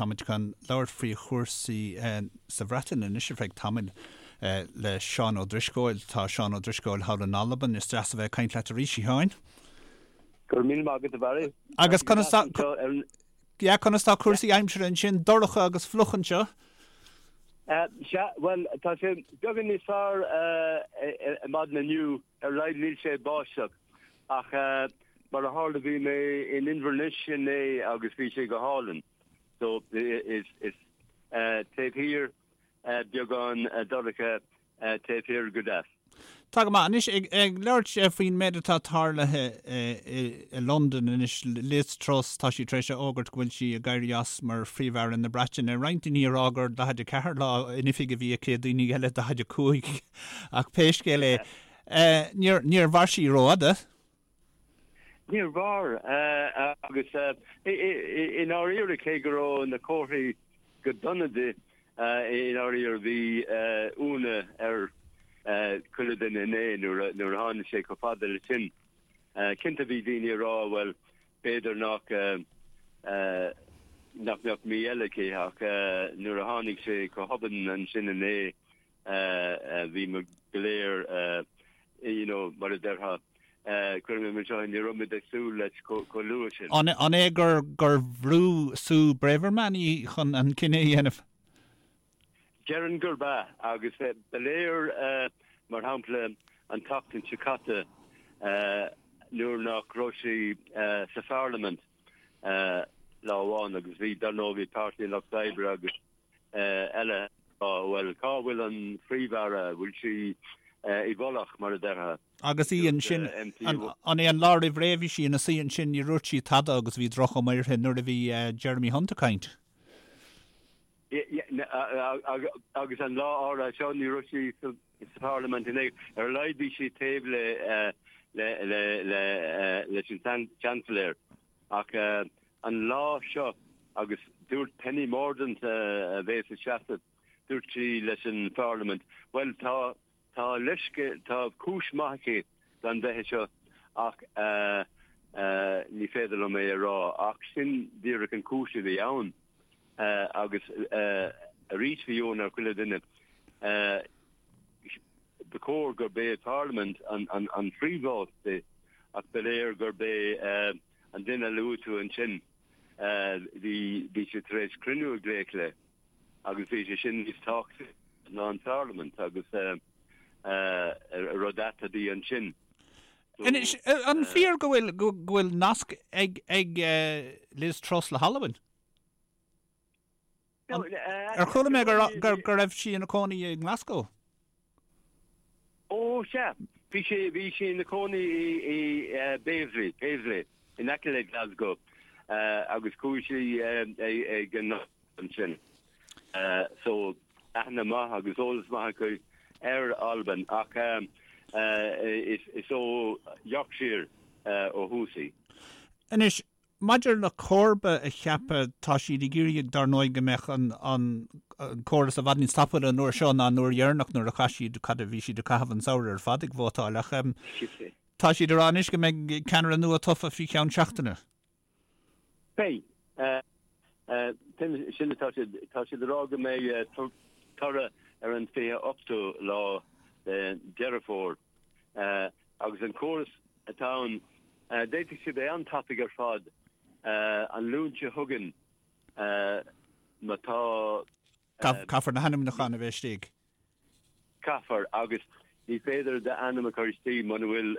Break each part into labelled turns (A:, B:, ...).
A: Táimid chun labhairt faoi chúrsaí sa Bhreatain anois ar feadh tamaill le Seán Ó Drisceoil. Tá Seán Ó Drisceoil thall in Albain. Is deas a bheith ag caint leat arís, a Sheáin.
B: Go raibh míle maith agat, a Bharry.
A: Agus conas tá, yeah, conas tá cúrsaí aimsire ansin? Dorcha agus fliuch anseo.
B: Sea, bhuel, tá sé beagán níos fearr ar maidin inniu, ar a laghad níl sé ag báisteach. Ach mar a tharla bhí mé in Inverness inné agus bhí sé go hálainn. So is taobh thiar beagán dorcha taobh thiar go deas.
A: Tá go maith. Anois, ag labhairt faoin méid atá tarlaithe i Londain anois, Liz Truss, tá sí tar éis a fhógairt go bhfuil sí ag éirí as mar Phríomh-Aire na Breataine. Roinnt daoine ag rá gur 44 lá in oifig a bhí aici, daoine eile 45. Ach pé scéal é, níor mhair sí rófhada.
B: Níor mhair, agus i ndáiríre, cé go raibh na comharthaí go dona di, i ndáiríre bhí ionadh ar chuile duine inné nuair a tháinig sé chomh fada leis sin. Cinnte bhí daoine ag rá, bhuel, b'fhéidir nach nach mbeadh mí eile aici, ach nuair a tháinig sé chomh hobann ansin inné, bhí muid go léir, you know, mar a déarfá, cuirfidh mé mar seo, ní raibh muid ag súil leis chomh luath sin.
A: An é gur bhrú Suella Braverman í chun an cinneadh a dhéanamh?
B: Déarfainn gurb ea, agus ba léir, mar shampla, an tseachtain seo caite nuair nach raibh sí sa pharlaimint lá amháin agus bhí, dar ndóigh, bhí Páirtí an Lucht Oibre agus eile ag rá, bhuel, cá bhfuil an Phríomh-Aire, bhfuil sí i bhfolach, mar a déarfá.
A: Agus í ansin, an é an lá roimh ré a bhí sí ina suí ansin, ní dúirt sí tada agus bhí droch-chuma uirthi nuair a bhí Jeremy Hunt ag caint.
B: Agus an lá áirithe seo, ní raibh sí sa Pharlaimint inné, ar a laghad bhí sí taobh leis an Seansailéir. Ach an lá seo, agus dúirt Penny Mordaunt a bhéas ag seasamh, dúirt sí leis an Pharlaimint, bhuel tá, tá leithscéal, tá cúis maith aici gan bheith anseo ach ní féidir liom é a rá. Ach sin díreach an cúis a bhí ann. Agus arís bhí ionadh ar chuile dhuine. Ba chóir gurb é Parlaimint an phríomháit di ach ba léir gurb é an duine a luaigh tú ansin, bhí sé tar éis cruinniú a ghlaoch léi agus bhí sé sin níos tábhachtaí ná an Pharlaimint agus rud ait a bhí ansin.
A: Anois, an fíor go bhfuil go bhfuil nasc ag Liz Truss le hAlbain? Ar chuala mé go raibh sí ina cónaí i nGlasgow?
B: Ó, sea. Bhí sí, bhí sí ina cónaí i Paisley, Paisley, in aice le Glasgow, agus chuaigh sí ag an ansin. So, aithne maith agus eolas maith aici ar Albain, ach is ó Yorkshire ó thús í.
A: Anois, Maidir le comharba a cheapadh, tá siad ag iarraidh, dar ndóigh, go mbeadh an córas i bhfad níos tapúla an uair seo ná an uair dheireanach nuair a chaith siad, cad a bhí siad ag caitheamh an samhradh ar fad ag vótáil. Ach tá siad ag rá anois go mbeidh ceannaire nua tofa faoi cheann seachtaine.
B: Beidh. Sin atá siad, tá siad ag rá go mbeidh toradh ar an 28ú lá de Deireadh Fómhair. Agus an córas atá ann, d'fhéadfadh sé bheith an-tapaidh ar fad an Luan seo chugainn má tá.
A: Caithfear na hainmniúcháin a bheith istigh.
B: Caithfear, agus ní féidir d'ainm a chur istigh muna bhfuil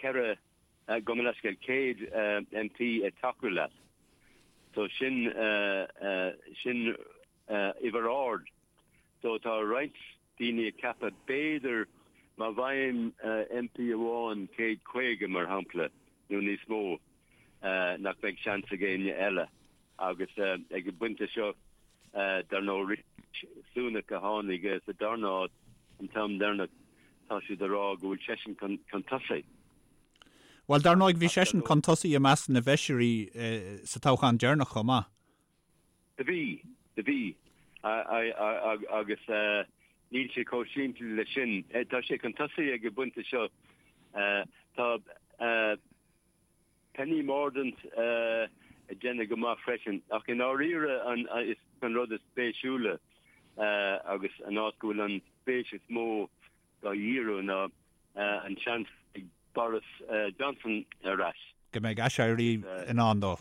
B: 4, gabh mo leithscéal, 100 MP ag tacú leat. So sin, sin uimhir ard. So tá roinnt daoine ag ceapadh, b'fhéidir, má bhfaigheann MP amháin 150, mar shampla, nó níos mó, nach mbeidh seans ag éinne eile. Agus ag an bpointe seo, dar ndóigh, Rishi Sunak a tháinig sa darna háit an t-am deireanach, tá siad ag rá go bhfuil seisean chun tosaigh.
A: Bhuel, dar ndóigh, bhí seisean chun tosaigh i measc na bhfeisirí sa toghchán deireanach chomh maith.
B: Do bhí, do bhí. Agus níl sé chomh simplí leis sin. Tá sé chun tosaigh ag an bpointe seo. Tá Penny Mordaunt. ag déanamh go maith freisin. Ach i ndáiríre an is an rud is spéisiúla agus an áit go bhfuil an spéis is mó dá dhíriú ná an seans ag Boris Johnson ar ais.
A: Go mbeidh aiséirí i ndán dó.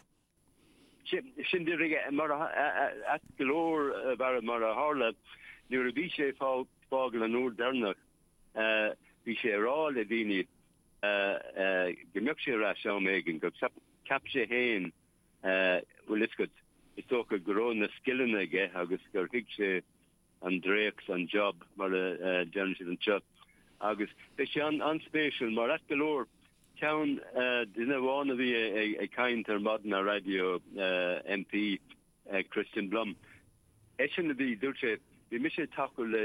B: Sin díreach mar ait go leor mar mar a tharla nuair a bhí sé ag fágáil an uair deireanach bhí sé ag rá le daoine go mbeadh sé ar ais am éigin go cheap sé féin bhfuil fhios agat is dócha go raibh na scileanna aige agus gur thuig sé an dréacht, an job mar a deireann siad anseo. Agus beidh sé an-spéisiúil mar ait go leor, ceann, duine amháin a bhí ag caint ar maidin ar raidió, MP Kristian Blom, eisean a bhí, dúirt sé, bhí mise ag tacú le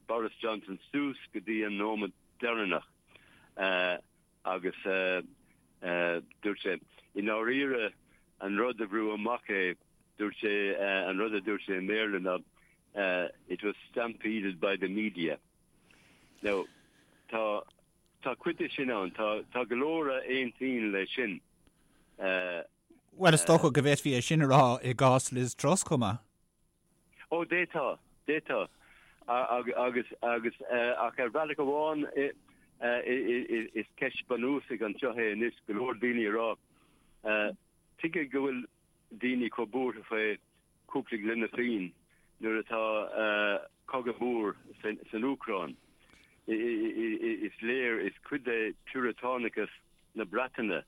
B: Boris Johnson suas go dtí an nóiméad deireanach agus dúirt sé, i ndáiríre, an rud a bhrú amach é, dúirt sé, an rud a dúirt sé i mBéarla ná it was stampeded by the media. Now, tá, tá cuid de sin ann, tá, tá go leor a aontaíonn leis sin.
A: Bhuel, is dócha go bhféadfaí é sin a rá i gcás Liz Truss chomh maith.
B: Ó, d'fhéadfá, d'fhéadfá. Agus, agus, ach ar bhealach amháin, is ceist bunúsach anseo é anois, go leor daoine ag rá, tuige go bhfuil daoine chomh buartha faoi cúpla gloine fíon nuair atá cogadh mór san Úcráin. Is léir, is cuid de phiúratánachas na Breataine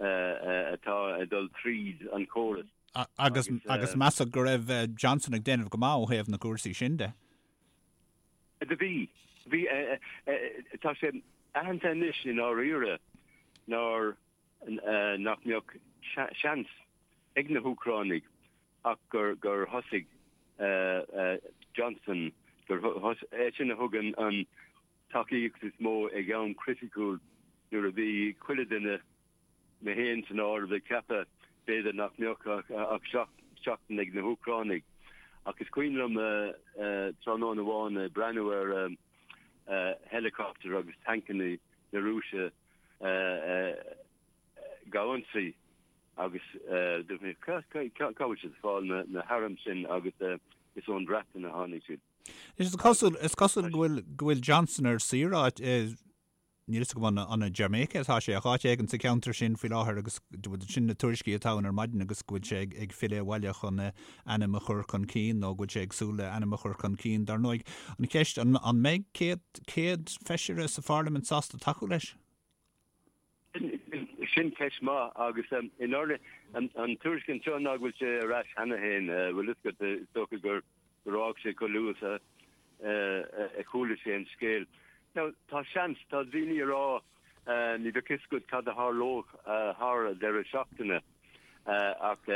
B: atá ag dul tríd an chóras.
A: Agus agus measadh go raibh Johnson ag déanamh go maith ó thaobh na gcúrsaí sin de.
B: Do bhí. Bhí. Tá sé aitheanta anois i ndáiríre nár nach mbeadh seans ag na hÚcránaigh ach gur gur thosaigh Johnson, gur eisean a thug an tacaíocht is mó ag am criticiúil nuair a bhí chuile duine mé féin san áireamh, ag ceapadh b'fhéidir nach mbeadh ach seachtain ag na hÚcránaigh. Ach is cuimhin liom tráthnóna amháin ag breathnú ar helicopter agus tancanna na Rúise ag ionsaí agus dúirt mé cá bhfuil siad ag fáil na hairm sin agus is ón Bhreatain a tháinig siad.
A: Is cosúil is cosúil go bhfuil go bhfuil Johnson ar saoire i Níl fhios agam an i Jamaica atá sé, ach áit éigin sa cheantar sin faoi láthair agus sin na tuairiscí atá ann ar maidin agus go bhfuil sé ag filleadh abhaile chun a ainm a chur chun cinn nó go bhfuil sé ag súil le ainm a chur chun cinn. Dar ndóigh, an cheist, an mbeidh 100 feisire sa pharlaimint sásta tacú leis?
B: Sin ceist maith agus i ndáiríre an tuairisc anseo ná go bhfuil sé ar ais cheana féin, bhfuil fhios agat, is dócha gur gur fhág sé chomh luath is a chuala sé an scéal. Now, tá seans, tá daoine ag rá, ní bheadh fhios agat cad a tharlódh thar an deireadh seachtaine ach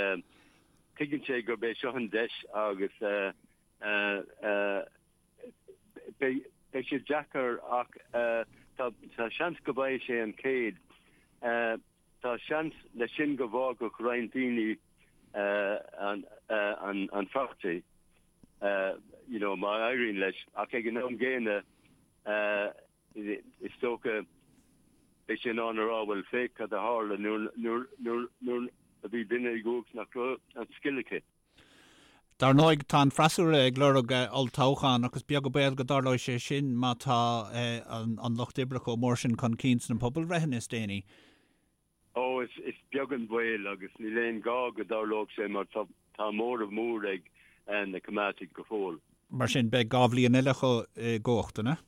B: tuigeann sé gurb é seo an deis agus beidh sé deacair ach tá seans go bhfaighidh sé an 100. Tá seans leis sin go bhfágfadh roinnt daoine an pháirtí, you know, má éiríonn leis, ach ag an am gcéanna is dócha beidh sé in ann a rá, bhuel, féach cad a tharla nuair a bhí duine i gcumhacht nach raibh an scil aici.
A: Dar ndóigh, tá an freasúra ag lorg olltoghchán ach is beag an baol go dtarlóidh sé sin má tá an Lucht Oibre chomh mór sin chun cinn sna pobalbhreitheanna is déanaí.
B: Ó, is beag an baol agus níl aon ghá go dtarlódh sé mar tá móramh mór ag na Coimeádaigh go fóill.
A: Mar sin, beidh 2 bhliain eile acu i gcumhacht, an ea?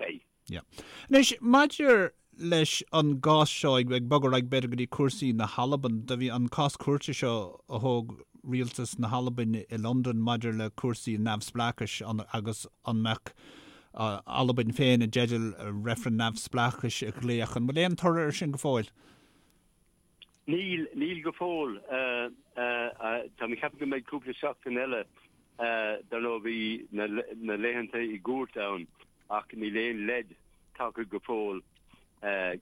B: Beidh.
A: Yeah. Anois, maidir leis an gcás seo, ag bogadh ar aghaidh b'fhéidir go dtí cúrsaí na hAlban, do bhí an cás cúirte seo a thóg rialtas na hAlban i Londain maidir le cúrsaí neamhspleáchais agus an mbeadh Albain féin i dteideal reifreann neamhspleáchais a ghlaoch. An bhfuil aon toradh ar sin go fóill?
B: Níl, níl go fóill. Tá mé ag ceapadh go mbeidh cúpla seachtain eile. Dar ndóigh bhí na laethanta i gcúirt ann ach níl aon leid tagtha go fóill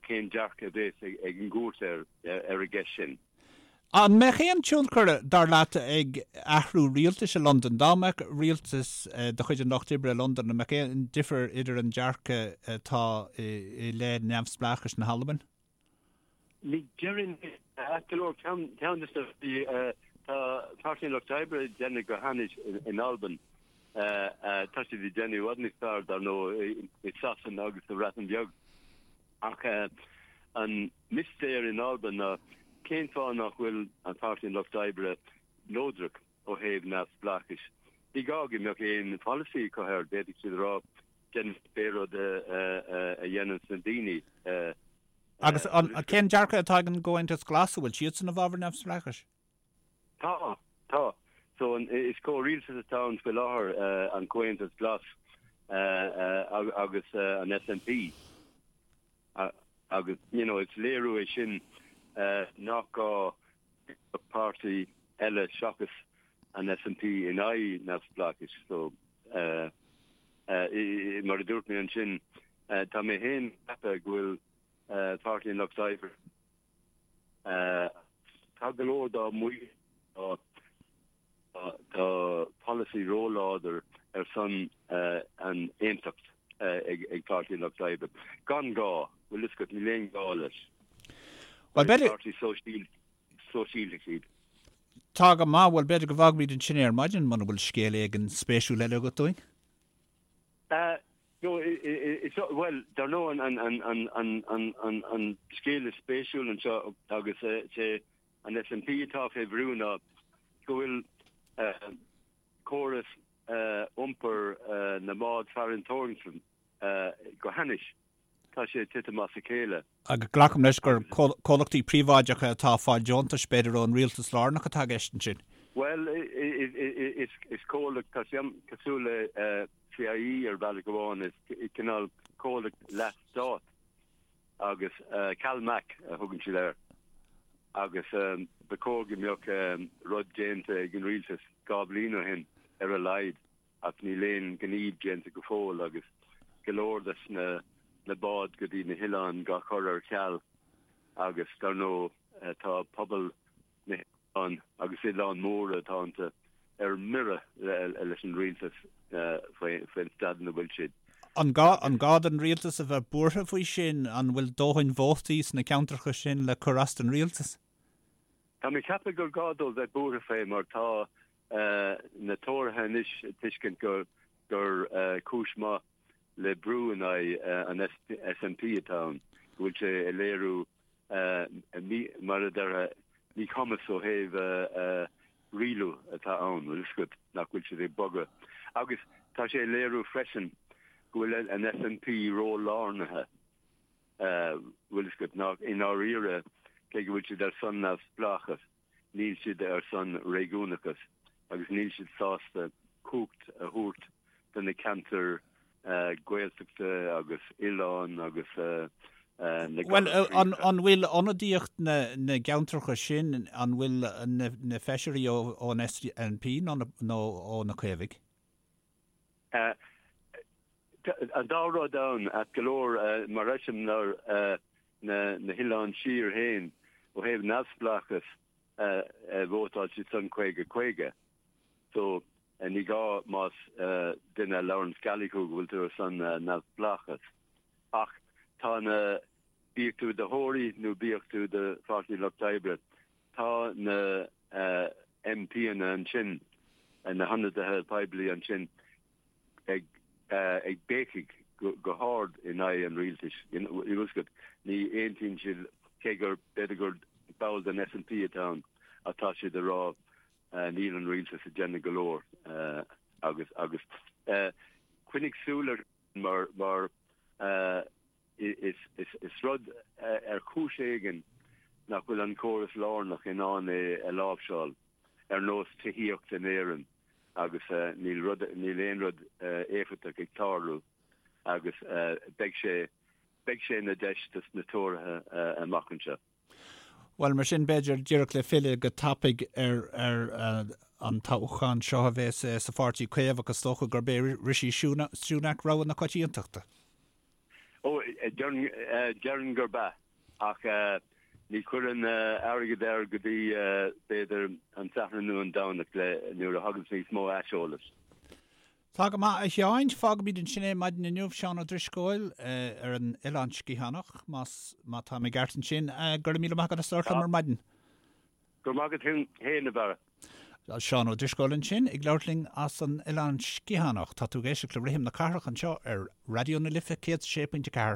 B: cén dearcadh a bheas ag an gcúirt ar an gceist sin.
A: An mbeadh aon tionchar, dar leat, ag athrú rialtais i Londain? Dá mbeadh rialtas de chuid an Lucht Oibre i Londain, an mbeadh aon difear idir an dearcadh atá i leith neamhspleáchais na hAlban?
B: Ní déarfainn ait go leor, ceann de na rudaí, tá Páirtí an Lucht Oibre ag déanamh go hainnis in Albain. Tá siad ag déanamh i bhfad níos fearr, dar ndóigh, i Sasana agus sa Bhreatain Bheag. Ach an mistéir in Albain ná cén fáth nach bhfuil an Páirtí an Lucht Oibre neodrach ó thaobh neamhspleáchais? Ní gá go mbeadh aon pholasaí acu air, d'fhéadfadh siad a rá, déanfaidh pé rud a dhéananns na daoine.
A: Agus cén dearcadh atá ag an gComhaontas Glas, an bhfuil siadsan i bhfabhar neamhspleáchais?
B: Tá, tá. So is comhrialtas atá ann faoi láthair, an Comhaontas Glas agus an SNP. Agus, you know, is léiriú é sin nach gá páirtí eile seachas an SNP in aghaidh neamhspleáchais. So, mar a dúirt mé ansin, Tá mé féin ag ceapadh go bhfuil Páirtí an Lucht Oibre, tá go leor dá mbaill, tá polasaí róláidir ar son an aontacht ag Páirtí an Lucht Oibre. Gan gá, bhfuil fhios agat, níl aon ghá leis.
A: Bhuel, b'fhéidir.
B: Páirtí sóisialtach iad.
A: Tá go maith, bhuel b'fhéidir go bhfágfaimid ansin é ar maidin muna bhfuil scéal éigin spéisiúil eile agat dúinn.
B: No, is, bhuel, dar ndóigh an scéal is spéisiúil anseo agus is é an SNP atá fé bhrú ná go bhfuil córas iompair na mbád farantóireachta go hainnis. Tá sé ag titim as a chéile.
A: Agus glacaim leis gur comhlachtaí príobháideacha atá ag fáil deontais, b'fhéidir, ón rialtas lárnach atá i gceist ansin?
B: Bhuel, is comhlacht, tá sé cosúil le CIÉ ar bhealach amháin, is cineál comhlacht leath-stát agus CalMac a thugann siad air. Agus ba chóir go mbeadh rud déanta ag an rialtas 2 bhliain ó shin ar a laghad. ach níl aon ghníomh déanta go fóill agus go leor des na na báid go dtí na hoileáin dhá chur ar ceal agus dar ndóigh tá pobal na hoileán agus oileáin mhóra atá iontu ar mire leis an rialtas faoin staid ina bhfuil siad.
A: An gá an gá don rialtas a bheith buartha faoi sin? An bhfuil dóthain vótaí sna ceantracha sin le cur as don rialtas?
B: Tá mé ag ceapadh gur gá dóibh bheith buartha fé mar tá na Tóraithe anois ag tuiscint gur cúis maith le brú in aghaidh an SNP atá ann, go bhfuil sé ag léiriú, mar a déarfá, míchumas ó thaobh rialú atá ann, bhfuil fhios agat, nach bhfuil siad ag bogadh. Agus tá sé ag léiriú freisin go bhfuil an SNP ró-lárnaithe, bhfuil fhios agat, nach i ndáiríre, cé go bhfuil siad ar son neamhspleáchas, níl siad ar son réigiúnachas agus níl siad sásta cumhacht a thabhairt do na ceantair Gaeltachta agus oileáin agus na
A: Bhuel, an bhfuil ionadaíocht na gceantracha sin, an bhfuil na feisirí ón SNP nó ó na Caomhaigh?
B: An dá rud ann, ait go leor, mar eiseamláir na hOileáin Siar féin, ó thaobh neamhspleáchas, vótáil siad san 50, 50. So, ní gá más duine a labhranns Gaelic thú go bhfuil tú ar son neamhspleáchas. Ach tá na, bíodh tú i do Thóraí nó bíodh tú i do Pháirtí Lucht Oibre, tá na MPanna ansin, na hionadaithe poiblí ansin, ag ag béicigh go hard in aghaidh an rialtais. Bhfuil fhios agat, ní aontaíonn siad, cé gur b'fhéidir gur ball den SNP atá ann, ach tá siad ag rá níl an rialtas ag déanamh go leor agus agus coinnigh súil air mar mar Is rud ar chúis éigin nach bhfuil an córas lárnach in ann é a láimhseáil, ar nós tithíocht in Éirinn, agus níl rud, níl aon rud éifeachtach ag tarlú agus beidh sé, beidh sé ina deis dos na Tóraithe amach anseo.
A: Bhuel, mar sin, b'fhéidir, díreach le filleadh go tapaidh ar an toghchán seo a bheas sa Pháirtí Caomhach, is dócha gurb é Rishi Sunak rogha na coitiantachta.
B: Ó, déarfainn gurb ea, ach ní chuirfinn airgead air go dtí, b'fhéidir, an Satharn nó an Domhnach, nuair a thaganns níos mó aiseolais.
A: Tá go maith, a Sheáin. Fágfaimid ansin é maidin inniu, Seán Ó Drisceoil ar an Oileán Sciathánach, más, má tá mé ceart ansin. Go raibh míle maith agat as labhairt liom ar maidin.
B: Go raibh maith agat féin, a Bharra.
A: Seán Ó Drisceoil ansin ag labhairt linn as an Oileán Sciathánach. Tá tú ag éisteacht le Rithim na Cathrach anseo ar Raidió na Life 106.4.